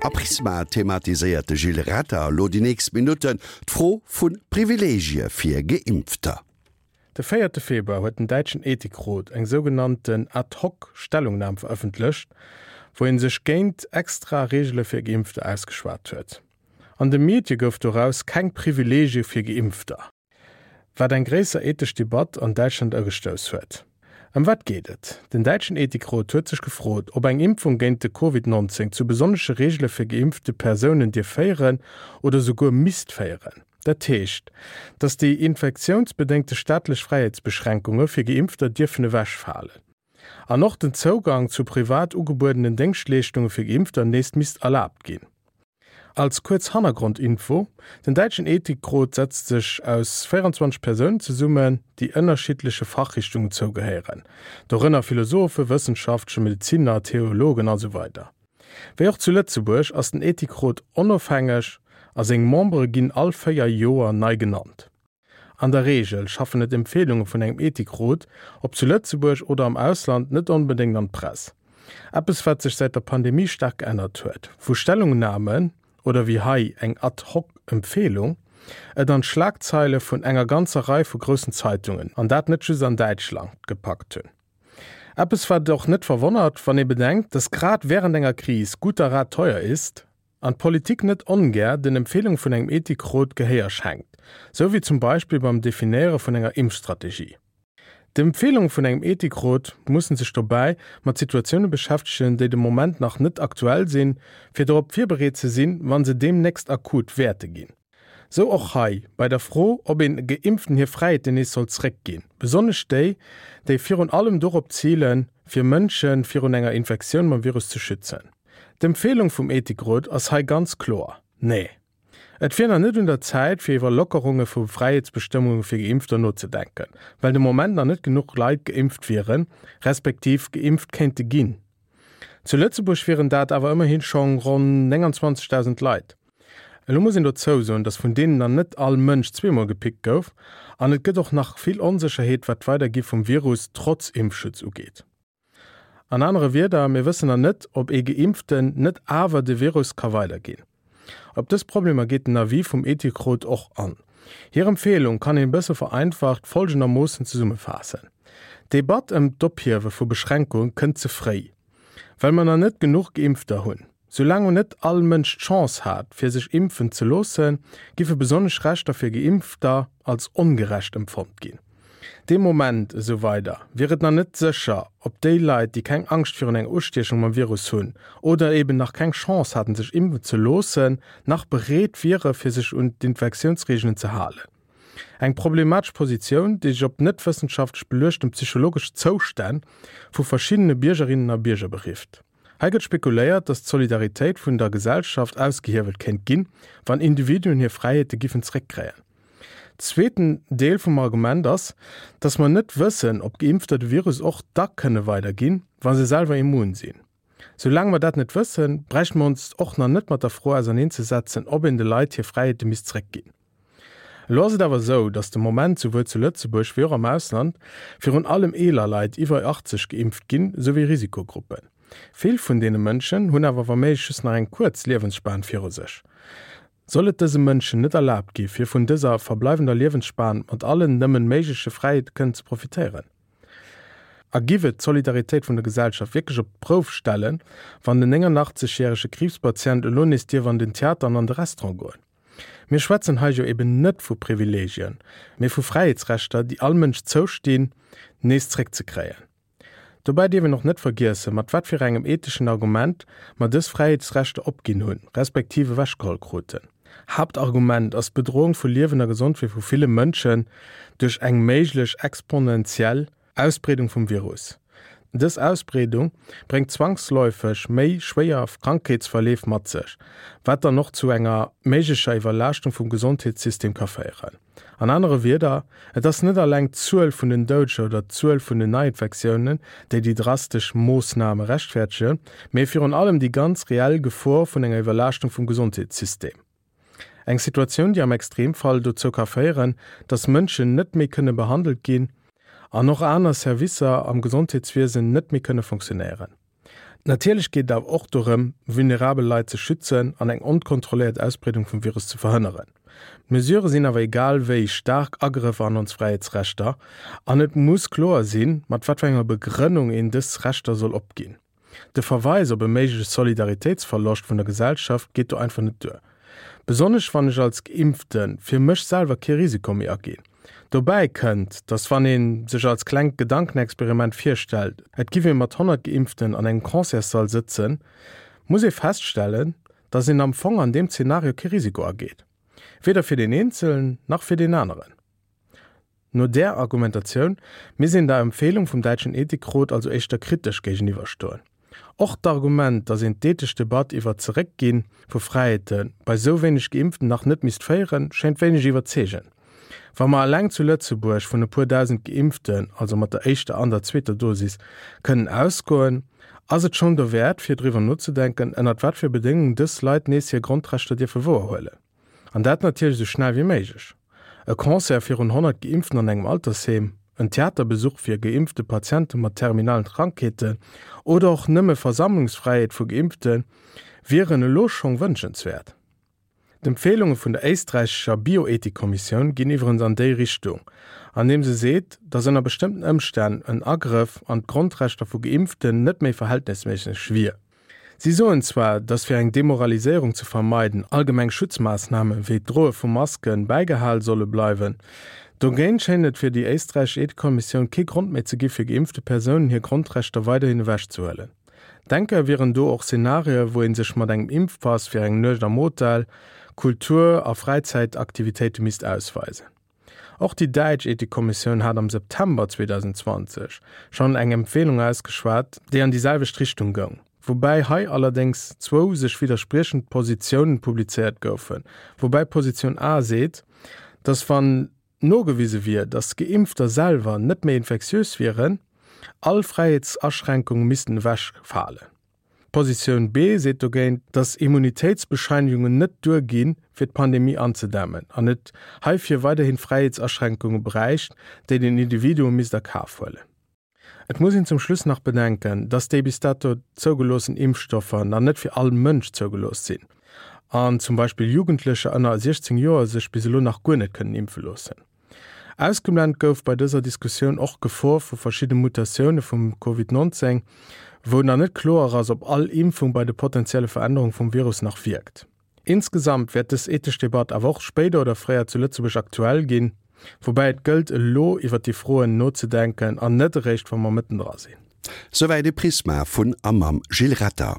A Prisma thematiséiert de Gilles Retter elo déi nächst Minutten d'Fro vu Privileegie fir Geimpfter. De véierte Februar huet den däitschen Ethikrot eng sougenannten Ad-hoc-Stellungnam verëffentlecht, wou ee sech géint extra Reegele fir Geimpfter ausgeschwat huet. An de Medie gouf doraus keng Privileegie fir Geimpfter. Wat eng gréisser ethesch Debatt an Däitschland ugestouss huet. Ëm wat geet et? Den däitschen Ethikrot huet sech gefrot, ob eng Impfung géint de Covid 19 zu besonnesche Reegele fir geimpfte Persounen dierf féieren oder souguer misst féieren. Dat heescht, datt déi infektiounsbedéngte staatlech Fräiheetsbeschränkunge fir Geimpfter dierfen ewechfalen. An och den Zougang zu privat ugebuedenen Déngschtleeschtunge fir Geimpfter nees misst erlaabt ginn. Als kuerz Hannergrondinfo, Den däitschen Ethikrot setzt sech aus 24 Persounen zesummen, déi ënnerschiddleche Fachrichtungen zougehéieren, dorënner Philosophen, Wëssenschaftlecher, Medezinner, Theologen a sou weider. Wéi och zu Lëtzebuerg ass den Ethikrot onofhängeg a seng Membere ginn all 4 Joer nei genannt. An der Reegel schaffen et Empfeelunge vun engem Ethikrot, ob zu Lëtzebuerg oder am Ausland, net onbedéngt an d'Press. Eppes wat sech säit der Pandemie staark geännert huet, wou Stellungnamen, oder wéi hei eng ad hoc Empfeelung, et an d'Schlagzeile vun enger ganzer Rei vu groussen Zeitungen, an dat net just an Däitschland, gepackt hunn. Eppes wat och net verwonnert, wann ee bedenkt, dass grad wärend enger Kris guter Rat teuer ist, An d'Politik net ongär den Empfehlunge vun engem Ethikrot Gehéier schenkt, sou wéi zum Beispill beim Definéiere vun enger Impfstrategie. D'Empfehlunge vun engem Ethikrot mussen sech dobäi mat Situatioune beschäftegen, déi de Moment nach net aktuell sinn, fir dorop virbereet ze sinn, wa se deemnächst akut wäerte ginn. Sou och hei bei der Fro, ob een Geimpften hir Fräiheeten nees soll zréckginn, besonnesch déi, déi virun allem dorop zilen, fir Mënsche virun enger Infektioun mam Virus ze schützen. D'Empfeelung vum Ethikrot ass hei ganz kloer, Nee. Et wier nach net un der Zäit, fir iwwer Lockerunge vu Fräiheetsbestëmmunge fir Geimpfter nozedenken, well de Moment nach net genuch Leit geimpft wieren, respektiv geimpft kéinte ginn. Zu Lëtzebuerg wieren dat awer ëmmerhi schonn ronn 29.000 Leit. Elo muss een dozou soen, datt vun deenen nach net all Mënsch zweemol gepickt gouf an et gëtt och nach vill Onsécherheet wat d'Weidergi vum Virus trotz Impfschutz ugeet. An anere Wierder, mir wëssen nach net, ob ee Geimpften net awer de Virus ka weiderginn. Op dës Problemer geet den Avis vum Ethikrot och an. Hir Empfeelung kann een e bësse vereinfacht folgendermoossen zesummefaassen, D'Debatt ëm d'Ophiewe vu Beschränkunge kënnt ze fréi, well mer nach net genuch Geimpfter hunn. Soulaang net all Mënsch d'Chance hat, fir sech impfen ze loossen, giffe besonnesch Rechter fir Geimpfter als ongerecht empfonnt ginn. Dee Moment, esou weider, wier et nach net sécher, ob déi Leit, déi keng Angscht virun enger Ustiechung mam Virus hunn oder eben nach keng Chance haten, sech impfen ze loossen, nach bereet wiere fir sech un d'Infektiounsreegelen ze halen. Eng problematesch Positioun, déi sech op net wëssenschaftlech beluechten psychologesch Zoustänn vu verschiddene Biergerinnen a Bierger berifft. Hei gëtt spekuléiert, datt d'Solidaritéit vun der Gesellschaft ausgehiewelt kéint ginn, wann Individuen hir Fräiheete giffen zréckkréien. Zweeten Deel vum Argument ass, datt mer net wëssen, ob Geimpfter de Virus och da kënne weiderginn, wa se selwer immun sinn. Soulaang mer dat net wëssen, bräichte mer ons och nach net mat der Fro auserneenzesetzen, ob een de Leit hir Fräiheete misst zréckginn. Elo ass et awer esou, datt de Moment souwuel zu Lëtzebuerg wéi och am Ausland virun allem eeler Leit iwwer 80 geimpft ginn, souwéi Risikogruppen. Vill vun deene Mënschen hunn awer wa méiglech just nach eng kuerz Liewensspan viru sech. Soll et dëse Mënschen net erlaabt gi fir vun dëser verbleiwender Liewensspan mat allen nëmmen méigleche Fräiheete kënnen ze profitéieren? A giff et d'Solidaritéit vun der Gesellschaft wierklech op d'Prouf stellen, wann den 89 järege Kriibspatient elo nees dierf an den Theater an an de Restaurant goen? Mir schwätzen hei jo eben net vu Privilegien, mee vu Fräiheetsrechter, déi all Mënsch zoustinn, nees zréckzekréien. Dobäi dierf een och net vergiessen, mat wat fir engem etheschen Argument mer dës Fräiheetsrechter opginn hunn, respektiv ewechgeholl kruten. Haaptargument ass d'Bedroung vu Liewen a Gesondheet vu ville Mënschen duerch eng méiglech exponentiell Ausbreedung vum Virus. Dës Ausbreedung bréngt zwangsläufeg méi schwéier Krankheetsverleef mat sech, wat dann och zu enger méiglecher Iwwerlaaschtung vum Gesondheetssystem ka féieren. An anere Wierder, et ass net alleng d'Zuel vun den Doudeger oder d'Zuel vun den Neiinfektiounen, déi déi drastesch Moossname rechtfäerdegen, mee virun allem déi ganz reell Gefor vun enger Iwwerlaaschtung vum Gesondheetssystem. Eng Situatioun, déi am Extremfall dozou ka féieren, datt Mënschen net méi kënne behandelt ginn an och aner Servicer am Gesondheetswiesen net méi kënne fonctionnéieren. Natierlech geet et awer och dorëm, vulnerabel Leit ze schützen an eng onkontrolléiert Ausbreedung vum Virus ze verhënneren. D'Mesurë sinn awer egal wéi staark Agrëffer an ons Fräiheetsrechter an et muss kloer sinn, mat wat fir enger Begrënnung een dës Rechter soll opginn. De Verweis op e méigleche Solidaritéitsverloscht vun der Gesellschaft geet do einfach net duer. Besonnesch wann ech als Geimpfte fir mech selwer kee Risiko méi aginn. Dobäi kënnt, datt wann ee sech als klengt Gedankenexperiment virstellt, et giff ee mat 100 Geimpften an engem Concertssall sëtzen, muss ee feststellen, datt een am Fong an deem Zenario kee Risiko ageet. Weder fir deen Eenzelen nach fir deen aneren. No där Argumentatioun misst een der Empfehlung vum däitschen Ethikrot also éischter kritesch géigeniwwer stoen. Och d'Argument, datt een d'ethesch Debatt iwwer d'Zeréckgi vu Fräiheete bei sou wéineg Geimpften nach net misst féieren, schéint wéineg iwwerzeegend. Wa mer eleng zu Lëtzebuerg vun e puer dausend Geimpften, also mat der éischter an der zweeter Dosis, kënnen ausgoen, ass et schonn dowäert fir driwwer nozedenken, ënnert wat fir Bedéngungen dës Leit nees hir Grondrechter dierfe wouerhuelen. An dat natierlech esou schnell wéi méiglech. E Concert virun 100 Geimpften an engem Altersheem, en Theaterbesuch fir geimpfte Patiente mat terminalen Krankheeten oder och nëmme Versammlungsfräiheet vu Geimpfte wieren elo schong wënschenswäert. D'Empfeelunge vun der éisträichescher Bioethikkommissioun ginn iwwerens an déi Richtung, andeem se seet, datt ënner bestëmmten Ëmstänn en Agrëff an d'Grondrechter vu Geimpften net méi verhältnesméisseg wier. Si soen zwar, datt fir eng Demoraliséierung ze vermeiden, allgemeng Schutzmaassname wéi d'Droe vu Maske bäigehal solle bleiwen. Dogéint schéint et fir déi éisträichesch Ethikkommissioun kee Grond méi ze gi fir geimpfte Persounen hir Grondrechter weiderhin ewechzehuelen. Denkbar wieren do och Szenarioe wou ee sech mat engem Impfpass fir eng Nuecht am Hotel, Kultur a Fräizäitaktivitéite misst ausweisen. Och déi däitsch Ethikkommissioun hat am September 2020 schonn eng Empfeelung ausgeschwat, déi an déi selwecht Richtung goung, woubäi hei allerdéngs zwou sech widderspriechend Positiounen publizéiert goufen, woubäi Positioun A seet, datt wann nogewise wier, datt Geimpfter selwer net méi infektiös wieren, all Fräiheetsaschränkunge missten ewechfalen. D'Positioun B seet dogéint, datt Immunitéitsbescheinigungen net duer ginn, fir d'Pandemie anzedämmen an et heifir weiderhi Fräiheetsaschränkunge bräicht, déi den Individuum misst a Kaf huelen. Et muss een zum Schluss nach bedenken, datt déi bis dato zougeloossen Impfstoffer nach net fir all Mënsch zougelooss sinn an zum Beispill Jugendlecher ënner 16 Joer sech bis elo nach guer net kënnen impfe loossen. Ausgeblent gouf bei dëser Diskussioun och d'Gefor vu verschidde Mutatioune vum Covid 19, wou nach net kloer ass, ob all Impfung bei de potenzielle Verännerung vum Virus nach wierkt. Insgesamt wäert dës ethesch Debatt awer och spéider oder fréier zu Lëtzebuerg aktuell ginn, woubäi et gëllt elo iwwer déi Froen nozedenken an net eréischt wa mer mëtten dra sinn. Souwäit e Prisma vun a mam Gilles Retter.